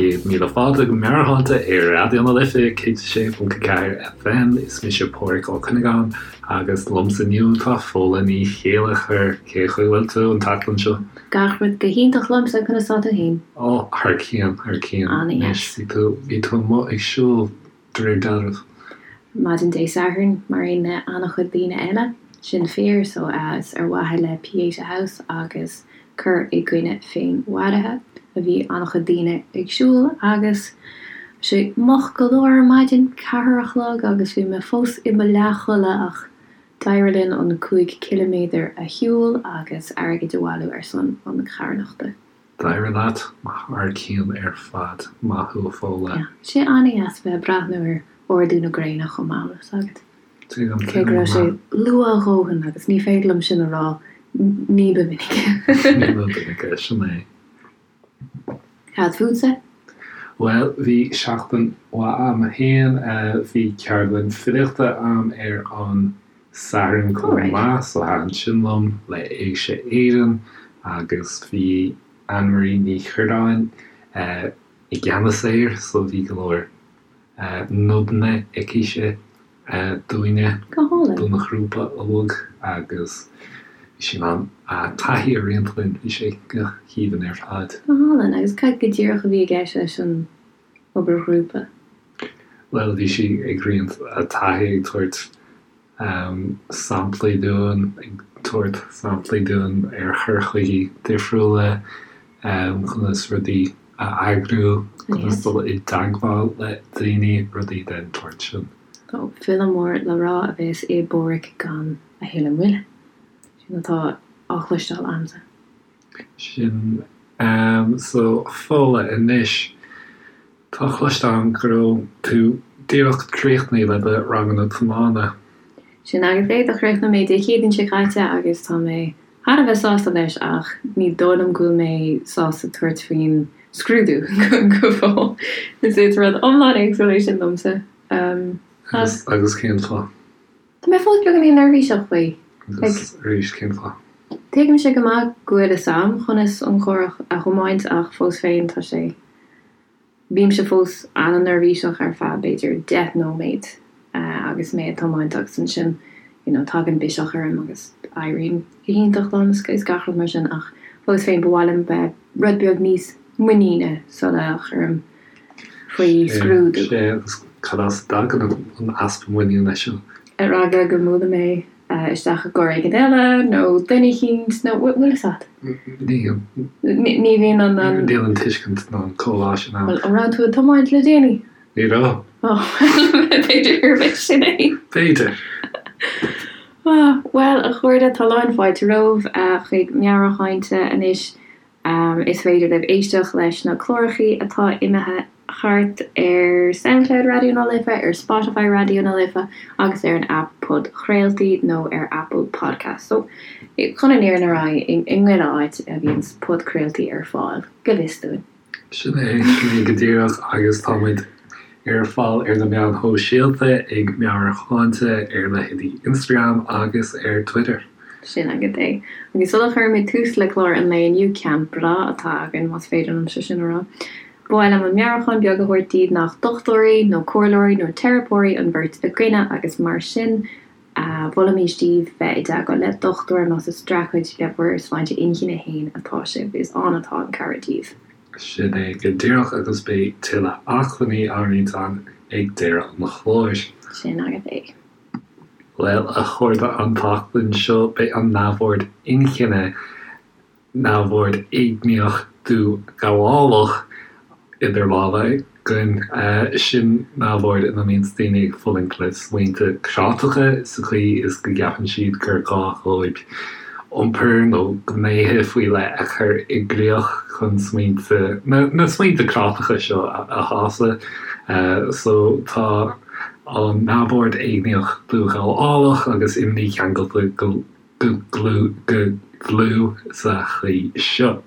Céad míle fáilte go Meabhairshláinte ar Raidió na Life 106.4 FM. Is mise Pádhraic Ó Cuinneagáin agus liomsa inniu tá Fódhla Ní Chéilleachair. Cén chaoi a bhfuil tú an tseachtain seo? Gach rud go hiontach liomsa, conas tá tú féin? Ó, thar cionn, thar cionn. Anois, bhí tú, bhí tú amuigh ag siúl de réir dealraimh. Maidin Dé Sathairn, mar aon le an-chuid daoine eile, sin fíor, so is ar mhaithe le Pieta House agus cur i gcoinne féinmharaithe a bhí an-chuid daoine ag siúl agus bhí sé moch go leor ar maidin, ceathair a chlog agus bhí mé fós i mo leathchodladh ach d'éirigh linn an 5 ciliméadar a shiúl agus airgead a bhailiú ar son an charthanachta. D'éirigh leat thar cionn ar fad. Maith thú a Fódhla. Yeah. Sé an-dheas bheith ag breathnú ar ardú na gréine chomh maith, bhfuil fhios agat. Tuigim, Cé go tuigim go raibh sé maith. luath a dhóthain agus ní féidir liom sin a rá ní ba mhinice. Ní ba mhinice, sin é. Cad fútsa? Bhuel, bhí seachtain mhaith a'm féin. Bhí ceardlann filíochta a'm ar an Satharn chomh maith, so thaitin sin liom, le Éigse Éireann agus bhí Anne-Marie Ní Chuirreáin i gceannas air, so bhí go leor nodanna aicise dúinne, don ghrúpa óg agus bhí sí in ann a taithí a roinnt linn, bhí sé go haoibhinn ar fad. Go hálainn, agus cad go díreach a bhí i gceist leis an obair ghrúpa? Bhuel, bhí sí ag roinnt a taithí, ag tabhairt samplaí dúinn, ag tabhairt samplaí dúinn ar chur chuigí difriúla, conas rudaí a eagrú, conas dul i dteagmháil le daoine, rudaí den tsórt sin. Ó, file mór le rá a bheas i bPádhraic gan a thuilleadh moille. Sin atá á chloisteáil a'msa. Sin so Fódhla anois. Tá cloiste agam go raibh tú díreach críochnaithe le do ranganna tiomána. Sin agat é, do chríochnaigh mé Dé Céadaoin seo caite agus tá mé thar a bheith sásta leis ach ní dóigh liom go bhfuil mé sásta tabhairt faoin scrúdú go fóill. Is rud iomlán éagsúil é sin domsa. Agus cén fáth? Tá mé fós beagáinín neirbhíseach faoi. Agus arís, cén fáth? Tuigimse go maith go bhfuil fhios a'm conas an carr a thiomáint ach fós féin tá sé, bímse fós an-neirbhíseach ar feadh b'fhéidir 10 nóiméad agus mé ag tiomáint agus ansin you know tagann biseach orm agus éiríonn go hiontach liom is gach rud mar sin ach fós féin ba mhaith liom bheith rud beag níos muiníne sula chuirim faoi scrúdú. Sea, agus cad as a dtagann an easpa muiníne seo? Ar eagla go mbuailfidh mé isteach i gcarr éigin eile nó duine eicínt nó bhfuil fhios a't? Níl. Ní bhíonn an. Níl an tuiscint ná an comhbhá sin ann. Bhuel, an raibh tú ag tiomáint le déanaí? Ní raibh. Ó, b'fhéidir gurb é sin é. B'fhéidir. Bhuel, a chairde, tá lán fáilte romhaibh chuig Meabhairshláinte anois. Is féidir libh éisteacht leis na clárachaí atá imithe thart ar Soundcloud Raidió na Life, ar Spotify Raidió na Life agus ar an aip podchraoltaí nó ar Apple Podcasts. So, chun an fhírinne a rá, i ngach áit a bhíonns podchraoltaí ar fáil, go bhfios dúinn. Sin é, sin é go díreach agus tá muid ar fáil ar na meáin shóisialta ag Meabhairshláinte ar leithéidí Instagram agus ar Twitter. Sin agat é. Agus sula chuirimid tús le clár an lae inniu, ceann breá atá againn, más féidir liomsa sin a rá, ba mhaith liom an meabhrúchán beag a thabhairt daoibh nach dochtúirí nó comhairleoirí nó teiripeoirí an bheirt againne agus mar sin mholfaimis daoibh bheith i dteagmháil le dochtúir más ag streachailt le bhur sláinte inchinne féin atá sibh, is ann atá an cabhair daoibh. Sin é go díreach agus beidh tuilleadh acmhainní á roinnt againn ag deireadh an chláir. Sin agat é. Bhuel, a chairde, an tseachtain seo beidh an neamhord inchinne, neamhord éigníoch dúghabhálach, idir lámha againn. Sin neamhord ina mbíonns daoine ag fulaingt le smaointe cráiteacha sa chaoi is go gceapann siad gur gá dhóibh iompar nó gnéithe faoi leith a chur i gcrích chun smaointe, na smaointe cráiteacha seo a shásamh. So tá an neamhord éigníoch dúghabhálach agus imní ceangailte go dlúth sa chaoi seo.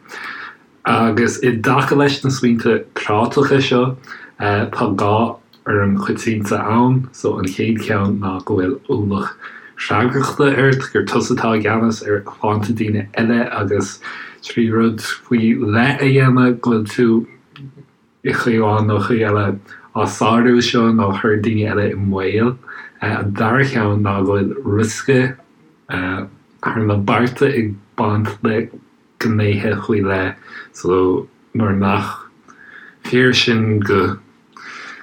Agus i dtaca leis na smaointe cráiteacha seo, tá dhá fhoirm choitianta ann. So an chéad cheann ná go bhfuil ualach freagrachta ort, gur tusa atá i gceannas ar shláinte daoine eile agus trí rud faoi leith a dhéanamh go bhfuil tú. I gcaoi amháin nó chaoi eile á sárú seo nó a chur daoine eile i mbaol. An dara ceann ná go bhfuil riosca thar na bearta ag baint le gnéithe faoi leith so nuair nach fíor sin go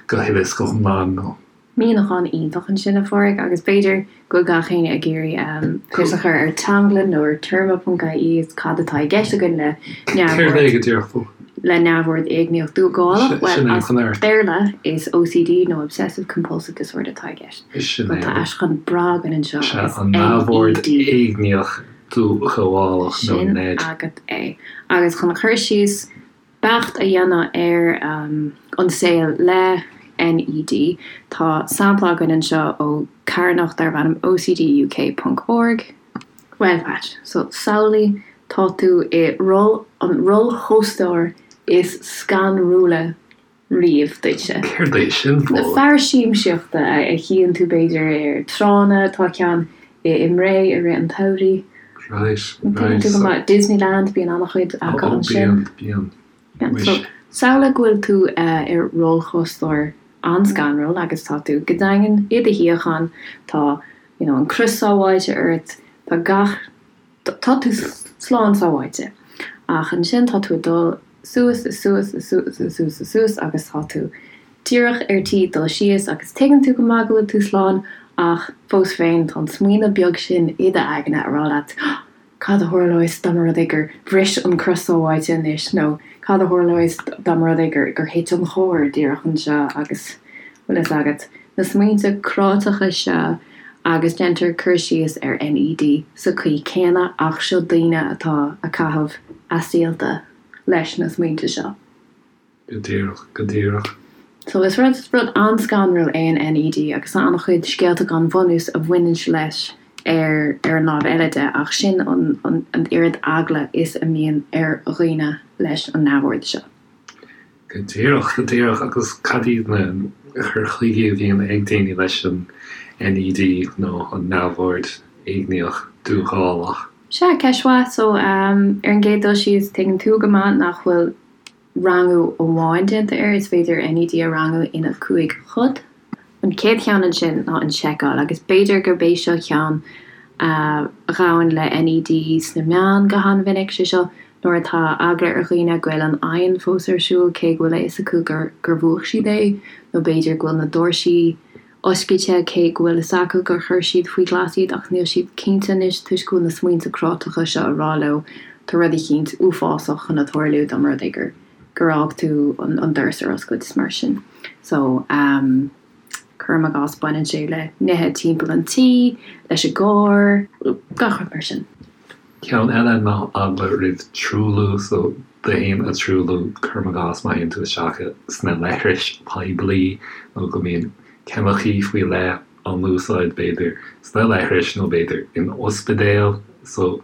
go huile is go hiomlán nó. Míniúchán iontach ansin, a Phádraig, agus b'fhéidir go bhfuil gach éinne ag iarraidh fios a chur ar teanglann nó ar téarma ponc ie is cad atá i gceist againn le neamhord le neamhord éigníoch dúghabhálach. Bhuel, as Béarla is OCD nó Obsessive Compulsive Disorder atá i gceist. Bhuel, tá aistriúchán breá againn anseo agus NED. Neamhord éigníoch dúghabhálach nó NED. Sin agat é. Agus chun cur síos beacht a dhéanamh ar an saol le NED. Tá sampla againn anseo ó carthanacht darb ainm OCDUK ponc org. Bhuel, Patch, so samhlaigh tá tú i roll, an rollchóstóir is scanrúla riamh duitse. Céard é sin, Fódhla? Fearas siamsaíochta a chíonn tú b'fhéidir ar tránna, tá ceann i mBré i rith an tsamhraidh. Right, right. Tuigeann tú go maith, Disneyland, bíonn an-chuid acu ansin. Ó, bíonn, bíonn. Muis. Samhlaigh go bhfuil tú ar rollchóstóir an-scanrúil agus tá tú go daingean i do shuíochán, tá you know an crios sábháilte ort, tá gach, tá tú slán sábháilte. Ach ansin tá tú ag dul suas is suas is suas is suas is suas agus tá tú díreach ar tí dul síos agus tuigeann tú go maith go bhfuil tú slán ach fós féin tá an smaoineamh beag sin i d'aigne a rá leat cad a tharlós dá mba rud é gur bhris an crios sábháilte anois nó cad a tharlós dá mba rud é gur gur thit an charr díreach anseo agus bhfuil fhios agat na smaointe cráiteacha seo agus déantar cur síos ar NED sa chaoi céanna ach seo daoine atá a caitheamh a saolta leis na smaointe seo. Go díreach, go díreach. So is rud, rud an-scanrúil é an NED agus tá an-chuid scéalta gan bhunús a bhaineann leis ar ar an lámh eile de ach sin an an an oiread eagla is a mbíonn ar dhaoine leis an neamhord seo. Go díreach, go díreach. Agus cad iad na cur chuige a bhíonn ag daoine leis an NED nó an neamhord éigníoch dúghabhálach? Sea, ceist mhaith. So, ar an gcéad dul síos, tuigeann tú go maith nach bhfuil rangú amháin déanta air, is féidir NED a rangú ina chúig chuid. An chéad cheann ansin ná an seiceáil, agus b'fhéidir gurb é seo ceann a ghabhann le NED sna meáin go han-mhinic, sé seo nuair atá eagla ar dhaoine go bhfuil an oighinn fós ar siúl cé go bhfuil a fhios acu gur gur mhúch siad é, nó b'fhéidir go bhfuil na doirsí oscailte cé go bhfuil fhios acu gur chuir siad faoi ghlas iad ach níl siad cinnte anois toisc go bhfuil na smaointe cráiteacha seo ag rá leo tá rud eicínt uafásach chun a tarlú dá mba rud é gur gur fhág tú an doras ar oscailt is mar sin. So ehm cuirim i gcás baineann sé le nithe timpeall an tí, leis an gcarr, gach rud mar sin. Ceann eile ná eagla roimh truailliú, so tú féin a truailliú, cuirim i gcás má théann tú isteach sna leithris poiblí nó go mbíonn ceimicí faoi leith á n-úsáid b'fhéidir sna leithris nó b'fhéidir in ospidéal. So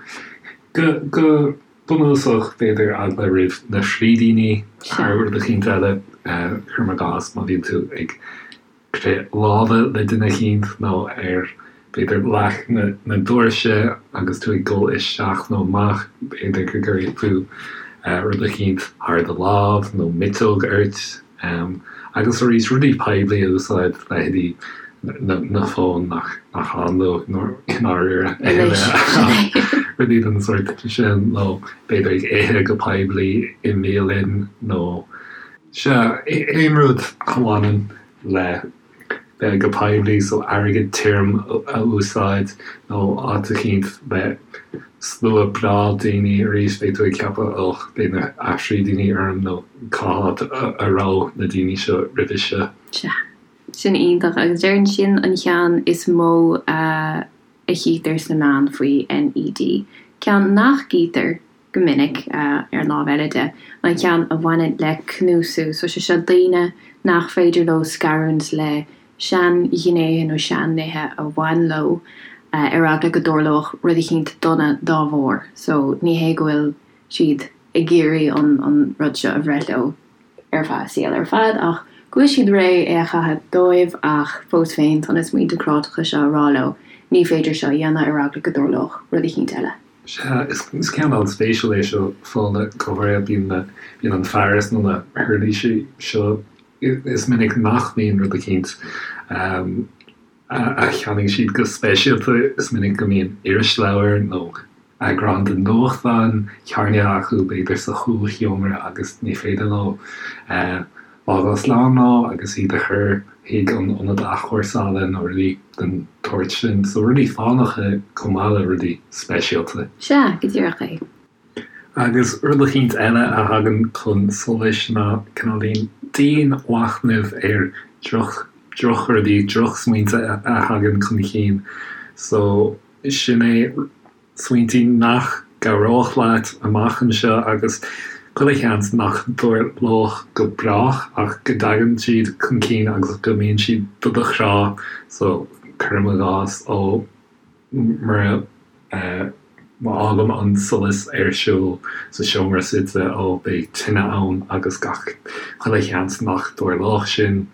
go go bunúsach b'fhéidir eagla roimh na frídíní thar rud eicínt eile, cuirim i gcás má bhíonn tú ag crith láimhe le duine eicínt nó ar, b'fhéidir, leac na doirse agus tú ag dul isteach nó amach, b'fhéidir go gcuirfidh tú rud eicínt thar do lámh nó miotóg ort. Agus arís, rudaí poiblí a úsáid, leithéidí na fóin nach ann dóibh i ndáiríre, rudaí den sórt sin, nó b'fhéidir ag ithe go poiblí i mbialann nó. Sea, aon rud a bhaineann le bheith go poiblí, so airgead tirim a úsáid nó áit eicínt le slua breá daoine, arís beidh tú ag ceapadh och, beidh na frídíní orm nó cá háit a raibh na daoine seo roimhe seo. Sea, sin iontach agus déarfainn sin an cheann is mó a chítear sna meáin faoi NED. Ceann nach gcítear go minic, ar an lámh eile de, an ceann a bhaineann le cnuasú. So sé seo daoine nach féidir leo scarúint le sean-ghnéithe nó sean-nithe a bhain leo ar eagla go dtarlódh rud eicínt dona dá bharr. So ní hé go bhfuil siad ag iarraidh an rud seo a bhreith leo ar feadh a saoil ar fad ach go bhfuil siad réidh é a chaitheamh dóibh ach fós féin tá na smaointe cráiteacha seo ag rá leo ní féidir seo a dhéanamh ar eagla go dtarlódh rud eicínt eile. Sea, is ceann an-spéisiúil é seo, Fódhla, go háirithe bíonn na, bíonn an fearas nó na huirlisí seo, is minic nach mbíonn rud eicínt a cheannaigh siad go speisialta, is minic go mbíonn irisleabhar nó eagrán den nuachtán cearnaithe acu, b'fhéidir sa chúlsheomra agus ní féidir leo fágáil slán leo agus iad a chur chuig an ionad athchúrsála nó rudaí den tsórt sin. So rudaí fánacha chomh maith le rudaí speisialta. Sea, go díreach é. Agus rud eicínt eile a thagann chun solais ná cineáilín dianmhachnamh ar droch, drochrudaí, drochsmaointe a thagann chun cinn. So sin é smaointí nach gcabhródh leat amach anseo agus chuile sheans nach dtarlódh go brách ach go dtagann siad chun cinn agus go mbíonn siad do do chrá so cuirim i gcás ó mura má fhágaim an solas ar siúl sa seomra suite ó beidh tine ann agus gach chuile sheans nach dtarlódh sin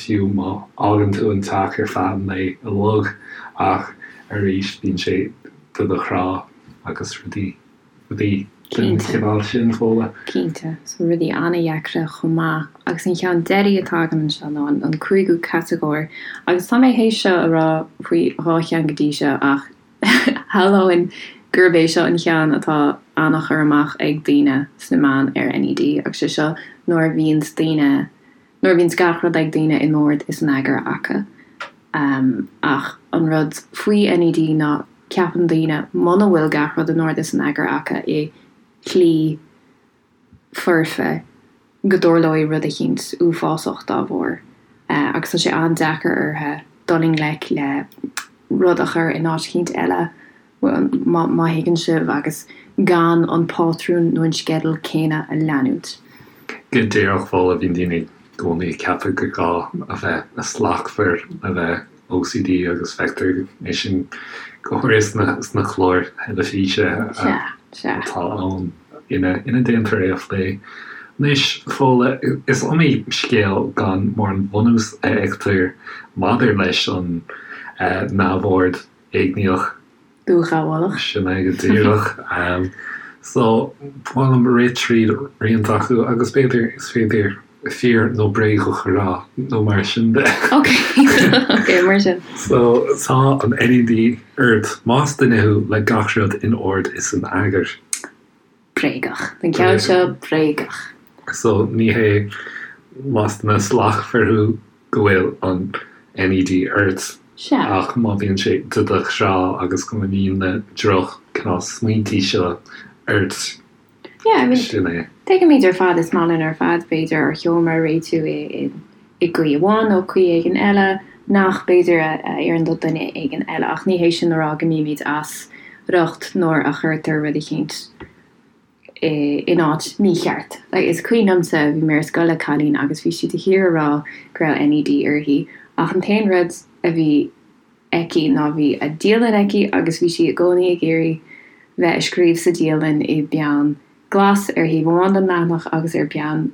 fiú má fhágann tú an teach ar feadh an lae uilig ach arís bíonn sé do do chrá agus rudaí, rudaí den chineál sin, Fódhla. Cinnte, so rudaí an-dheacra chomh maith. Agus an cheann deiridh atá agam anseo ná an cúigiú catagóir. Agus tá mé théis seo a rá faoi dhá cheann go dtí seo ach shamhlóinn gurb é seo an cheann atá an-chur amach ag daoine sna meáin ar NED agus sé seo nuair a bhíonns daoine, nuair a bhíonns gach rud ag daoine in ord is in eagar acu. Ach an rud faoi NED ná ceapann daoine muna bhfuil gach rud in ord is in eagar acu i shlí foirfe go dtarlóidh rud eicínt uafásach dá bharr agus tá sé an-deacair orthu dul i ngleic le rud a chur in áit eicínt eile má thuigeann sibh, agus gan an pátrún nó an sceideal céanna a leanúint. Go díreach, Fódhla, bíonn daoine i gcónaí ag ceapadh gur gá a bheith slachtmhar le bheith OCD agus feictear é sin go háirithe sna cláir theilifíse atá ann ina ndéantar é a phlé. Anois, Fódhla, is iomaí scéal gan mórán bunús a fheictear maidir leis an neamhord. éigníoch. Dúghabhálach. Sin é go díreach. So, ba mhaith liom rith tríd roinnt acu agus b'fhéidir is féidir fíor nó bréagach a rá nó mar sin de. Ok, ok, mar sin. So, tá an NED ort más duine thú le gach rud in ord is in eagar. Bréagach. An ceann seo, bréagach. So, ní hé más duine slachtmhar thú go bhfuil an NED ort Sea. ach má bhíonn sé do do chrá agus go mbíonn na droch cineál smaointí seo ort, Yeah, I mean, sin é. tuigimid ar fad, is maith linn ar fad, b'fhéidir, ár seomra a réitiú i i gcaoi amháin nó caoi éigin eile, nach b'fhéidir a oireann do dhuine éigin eile, ach ní hé sin a rá go mbímid as riocht nuair a chuirtear rud eicínt in áit mícheart. Is cuimhin liomsa, bhí mé ar scoil le cailín agus bhí sí de shíor ag rá go raibh NED uirthi, ach an t-aon rud a bhí aici ná bhí a dialann aici agus bhí sí i gcónaí ag iarraidh bheith ag scríobh sa dialann i bpeann glas ar thaobh amháin den leathanach agus ar peann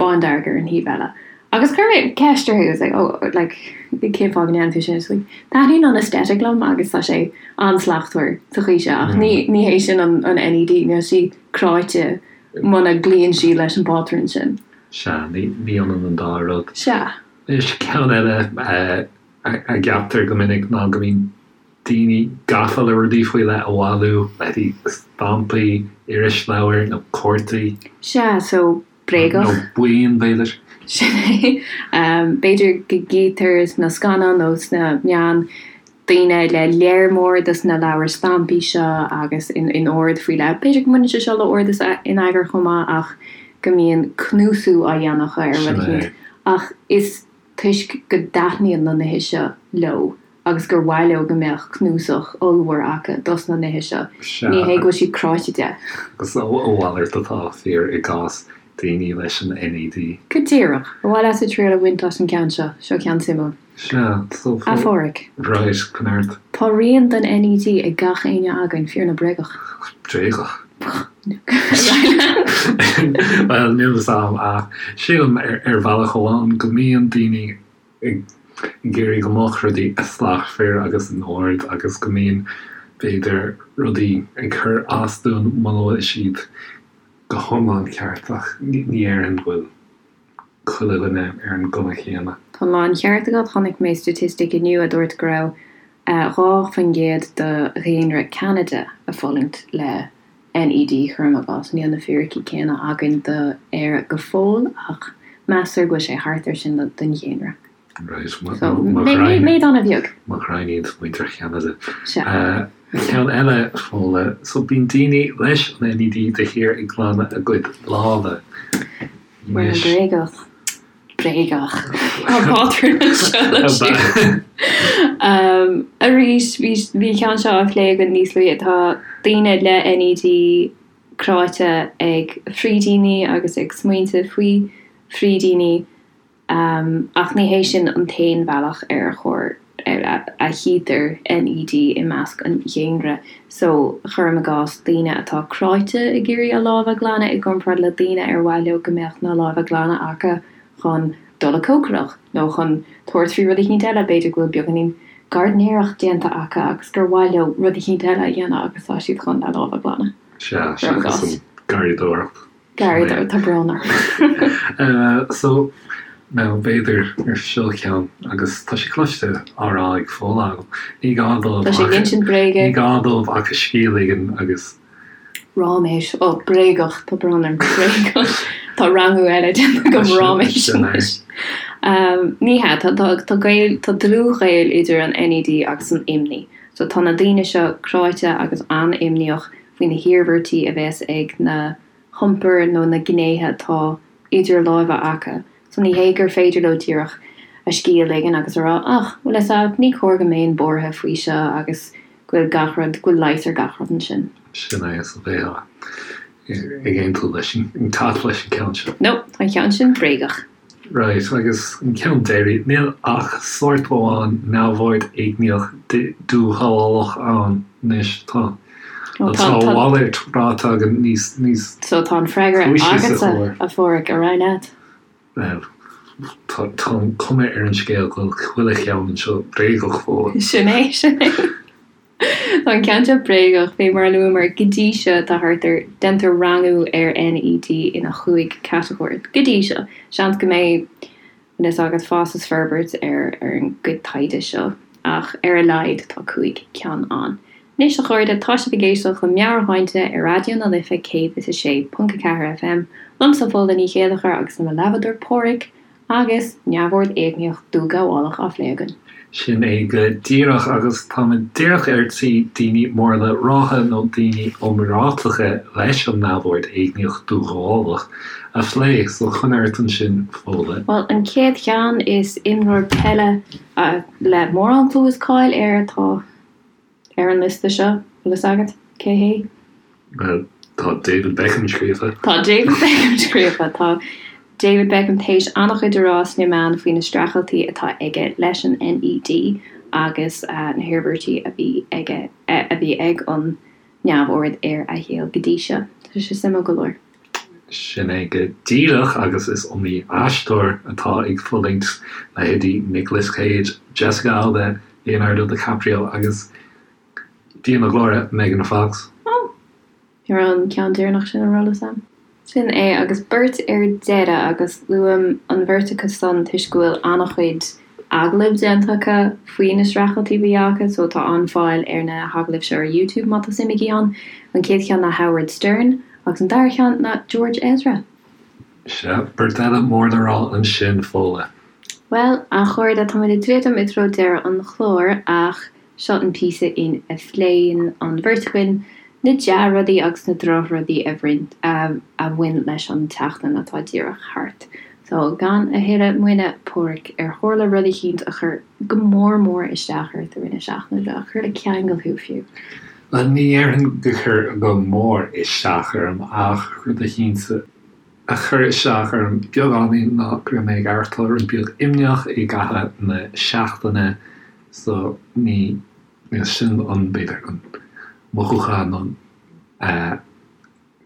bándearg ar an thaobh eile. Agus chuir mé ceist uirthi, I was like, oh, like, cén fáth go ndéanann tú sin? She's like, taitníonn an aesthetic liom agus tá sé an-slachtmhar sa chaoi seo, ach ní, ní hé sin an, an NED, níl sí cráite muna gcloíonn sí leis an bpátrún sin. Sea, ní, ní ionann an dá rud. Sea. Anois, ceann eile a, a gceaptar go minic ná go mbíonn daoine gafa le rudaí faoi leith a bhailiú, leithéidí stampaí, irisleabhair nó cártaí. Sea, so bréagach. Nó buíon, b'fhéidir. Sin é. B'fhéidir go gcítear sna scannáin nó sna meáin daoine le léar mór dos na leabhair stampaí seo agus in ord faoi leith. B'fhéidir go mbaineann sé seo le ord is in eagar chomh maith ach go mbíonn cnuasú á dhéanamh acu ar rud eicínt. Ach is toisc go dtaitníonn na nithe seo leo agus gur mhaith leo go mbeadh cnuasach ollmhór acu dos na nithe seo. Sea. Ní hé go bhfuil siad cráite de. Agus a mhalairt atá fíor i gcás daoine leis an NED. Go díreach. Ar mhaith leatsa triail a bhaint as an gceann seo? Seo ceann suimiúil. Sea, so. A Pháraic. Right, conair. Tá rian den NED ag gach éinne againn, fíor nó bréagach? Bréagach. Bhuel, níl fhios a'm ach sílim ar bhealach amháin go mbíonn daoine ag iarraidh go mbeadh rudaí slachtmhar agus in ord agus go mbíonn. b'fhéidir, rudaí ag cur as dúinn muna bhfuil siad go hiomlán ceart ach ní déarfainn go bhfuil chuile dhuine ar an gcuma chéanna. Tá an láncheart agat, chonaic mé staitistic inniu a dúirt go raibh 2% de dhaonra Ceanada ag fulaingt le NED, cuirim i gcás. Níl na fíricí céanna againn do Éire go fóill ach meastar go bhfuil sé thart ar sin den dhaonra. Right, mo ghraidhin. Méid an-bheag. Mo ghraidhin iad muintir Cheanada. Sea. Ceann eile, Fódhla. So bíonn daoine leis an NED de shíor ag glanadh a gcuid lámha. Bhuel, bréagach. Bréagach. Tá pátrún anseo le siúl. Arís, bhí an ceann seo á phlé againn níos luaithe. Tá daoine le NED cráite ag frídíní agus ag smaointe faoi frídíní. Ach ní hé sin an t-aon bhealach ar chóir a chítear NED i measc an dhaonra so, cuirim i gcás, daoine atá cráite ag iarraidh a lámha a ghlanadh i gcomparáid le daoine ar mhaith leo go mbeadh na lámha glana acu chun dul ag cócaireacht nó chun tabhairt faoi rud eicínt eile, b'fhéidir go bhfuil beagáinín gairdnéireacht déanta acu agus gur mhaith leo rud eicínt eile a dhéanamh agus tá siad chun a lámha a ghlanadh. Sea, seachas an garraíodóireacht. Garraíodóireacht, tá brón orm. So, now, b'fhéidir gur seo ceann, agus tá sé cloiste á rá ag Fódhla agam, ní gá dóibh Tá sé ag insint bréige. Ní gá dóibh ach a scíth a ligean agus. Ráiméis, ó, bréagach, tá brón orm, bréagach. Tá rangú eile déanta agam, ráiméis anois. Ní hea, tá, tá, tá gaol, tá dlúthghaol idir an NED agus an imní. So tá na daoine seo cráite agus an-imníoch faoi na hiarmhairtí a bheas ag na hiompair nó na gnéithe atá idir lámha acu. So ní hé gur féidir leo díreach a scíth a ligean agus a rá ach, bhfuil fhios a'd, ní cóir go mbeinn buartha faoi seo agus go bhfuil gach rud, go bhfuil leigheas ar gach rud ansin. Sin é, so bheifeá ag aontú leis an cat leis an ceann seo. No, tá an ceann sin bréagach. Right, agus an ceann deiridh, níl ach sórt amháin neamhord éigníoch dúghabhálach ann anois, tá tá a mhalairt ráite againn níos níos So tá an freagra agatsa, a Pháraic, ar aghaidh leat. Bhuel, tá tá an cuma ar an scéal go bhfuil chuile cheann anseo bréagach, Fódhla. Sin é, sin é. Tá an ceann seo bréagach, fé mar a luamar go dtí seo tá thart ar, déantar rangú ar NED ina chúig catagóir go dtí seo. Seans go mbeidh, bhfuil fhios agat, fás is forbairt ar ar an gcuid taighde seo ach ar a laghad tá 5 ceann ann. Anois a chairde, tá sibh ag éisteacht le Meabhairshláinte ar Raidió na Life 106.4 FM, liomsa Fódhla Ní Chéilleachair agus le mo leathbhádóir Páraic, Agus neamhord éigníoch dúghabhálach á phlé againn. Sin é go díreach, agus táimid díreach ar tí daoine mór le rá nó daoine iomráiteacha leis an neamhord éigníoch dúghabhálach a phlé, so coinnigh ort ansin, Fódhla. Bhuel, an chéad cheann, is imreoir peile le mórán clú is cáil air atá. Ar an liosta seo, bhfuil fhios agat cé hé? Bhuel, tá David Beckham scríofa. Tá David Beckham scríofa. Tá David Beckham théis an-chuid a rá sna meáin faoi na streachailtí atá aige leis an NED agus na hiarmhairtí a bhí aige, a bhí ag an neamhord ar a shaol go dtí seo. Tá sé suimiúil go leor. Sin é go díreach agus is iomaí aisteoir atá ag fulaingt, leithéidí Nicolas Cage, Jessica Alba, Leonardo DiCaprio agus, Dia na glóire, Megan Fox. Ó! Ní raibh an ceann deireanach sin ar eolas a'm. Sin é agus beirt ar deireadh agus luaim an bheirt acu san toisc go bhfuil an-chuid agallamh déanta acu faoi na streachailtí a bhí acu so tá an-fháil ar na hagallaimh seo ar YouTube má tá suim agaibh ann. An chéad cheann ná Howard Stern agus an dara ceann ná George Ezra. Sea, beirt eile mór le rá ansin, Fódhla. Bhuel, a chairde, táimid ag druidim i dtreo deireadh an chláir ach seo an píosa in a phléann an bheirt againn na dea-rudaí agus na drochrudaí a a bhain leis an tseachtain atá díreach thart. So, gan a thuilleadh moille, Páraic, ar tharla rud eicínt a chuir go mór mór isteach ort i rith na seachtaine seo, a chuir le ceangal thú fiú? Bhuel, ní dhéarfainn gur chuir go mór isteach orm ach rud eicínt a chuir isteach orm beagáinín ná go raibh mé ag aireachtáil rud beag imníoch i gcaitheamh na seachtaine so ní sin an, b'fhéidir, an mothúchán nó an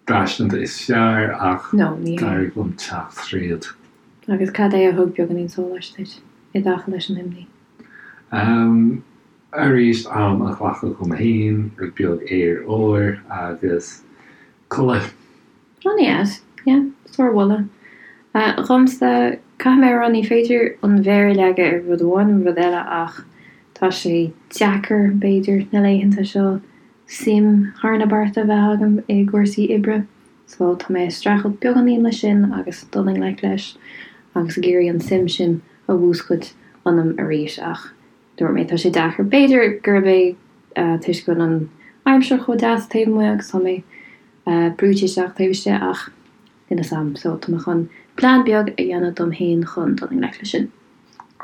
braistint is fearr ach d'éirigh liom teacht tríd. Agus cad é a thug beagáinín sóláis duit i dtaca leis an imní? Arís, am a ghlacadh dom féin, rud beag aer úr agus codladh. An-deas, yeah, sármholadh. Dhomsa, caithfidh mé a rá, ní féidir an mhéar a leagadh ar rud amháin nó rud eile ach tá sé deacair, b'fhéidir, na laethanta seo suim thar na bearta a bheith agam i gcúrsaí oibre so tá mé ag streachailt beagáinín leis sin agus dul i ngleic leis agus ag iarraidh an suim sin a mhúscailt ionam arís ach Dúirt mé, tá sé deacair. B'fhéidir gurb é toisc go bhfuil an aimsir chomh deas taobh amuigh agus tá mé brúite isteach taobh istigh ach níl fhios a'm. So tá mé chun plean beag a dhéanamh dom féin chun dul i ngleic leis sin.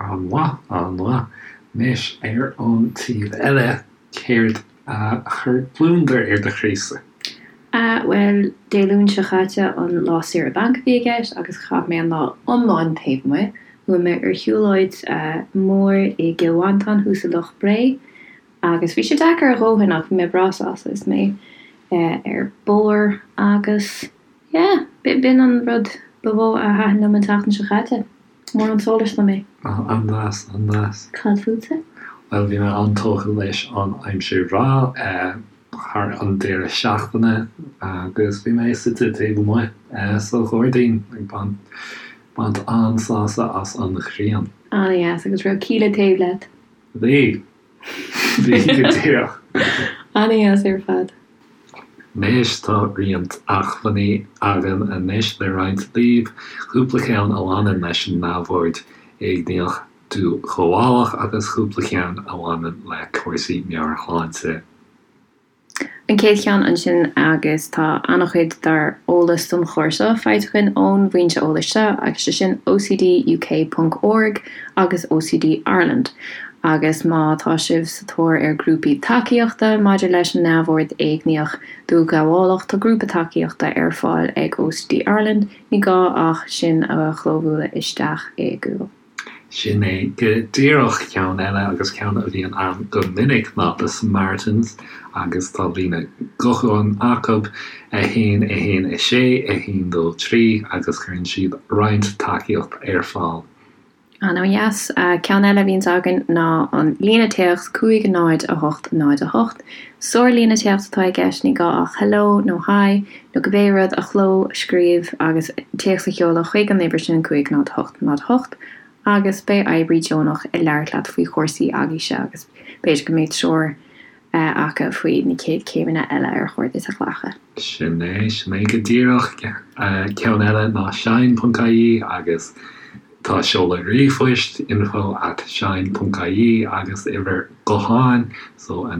An-mhaith, an-mhaith. Anois ar an taobh eile, céard a chuir gliondar ar do chroísa? Bhuel, Dé Luain seo chaite an lá saoire bainc a bhí i gceist agus chaith mé an lá iomlán taobh amuigh. Chuaigh mé ar shiúlóid mhór i gCill Mhantáin thuas i Loch Bré agus bhí sé deacair a dhóthain ach bhí mé breá sásta is mé ar bord agus yeah, b'in an rud ba mhó a thaitin liom an tseachtain seo chaite. Mór an sólás dom é. An-deas, an-deas. Cad fútsa? Bhuel, bhí mé an-tógtha leis an aimsir bhreá thar an deireadh seachtaine agus bhí mé suite taobh amuigh sa ghairdín ag baint an-sásamh as an ghrian. An-deas, agus raibh Kíla taobh leat? Bhí. Bhí go díreach. An-deas ar fad. Anois tá roinnt acmhainní againn anois le roinnt libh, cúpla ceann a bhaineann leis an neamhord éigníoch dúghabhálach agus cúpla ceann a bhaineann le cúrsaí meabhairshláinte. An chéad cheann ansin agus tá an-chuid dár eolas don chlár seo faighte againn ón bhfoinse eolais seo agus sé sin OCDUK ponc org agus OCD Ireland agus má tá sibh sa tóir ar grúpaí tacaíochta maidir leis an neamhord éigníoch dúghabhálach tá grúpa tacaíochta ar fáil ag OCD Ireland, ní gá ach sin a chlóbhualadh isteach i Google. Sin é go díreach ceann eile agus ceann a bhíonn ann go minic ná The Samaritans agus tá líne gutháin acu, 1 1 6 1 2 3 agus cuireann siad roinnt tacaíocht ar fáil. An-dheas. Ceann eile a bhíonns againn ná an líne téacs 5 0 8 0 8. Sár-líne téacs atá i gceist, ní gá ach hello nó hi nó cibé rud a chlóscríobh agus téacs a sheoladh chuig an uimhir sin, 5 0 8 0 8, agus beidh oibrí deonach ag labhairt leat faoi chúrsaí agaibhse agus b'fhéidir go mbeidh treoir acu faoi na chéad chéimeanna eile ar chóir duit a ghlacadh. Sin é, sin é go díreach. Ceann eile ná shine ponc ie agus Tá seoladh ríomhphoist, info at shine ponc ie, agus uimhir gutháin, so 0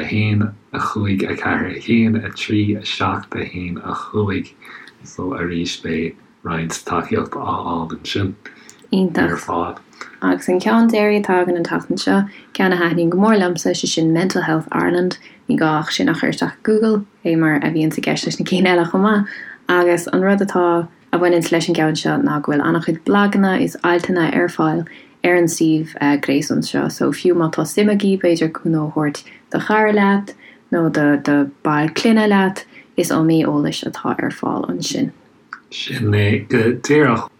1 5 4 1 3 7 1 5, so arís beidh roinnt tacaíocht á fháil ansin ar fad. Agus an ceann deiridh atá againn an tseachtain seo, ceann a thaitníonn go mór liomsa, sé sin Mental Health Ireland, ní gá ach sin a chur isteach i Google, fé mar a bhíonns i gceist leis na cinn eile chomh maith, agus an rud atá a bhaineanns leis an gceann seo ná go bhfuil an-chuid blaganna is altanna ar fáil ar an suíomh gréasáin seo so fiú má tá suim agaibh b'fhéidir cúnamh a thabhairt do chara leat nó do do ball clainne leat is iomaí eolais atá ar fáil ansin. Sin é go díreach.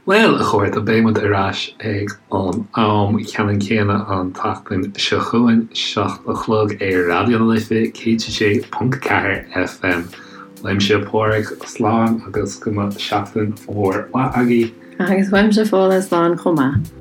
Bhuel, a chairde, beidh muid ar ais ag an am ceannann céanna an tseachtain seo chugainn, 7 a chlog ar Raidió na Life 106.4 FM. Uaimse Pádraig, slán agus go mba seachtain mhór mhaith agaibh. Agus uaimse Fódhla, slán chomh maith.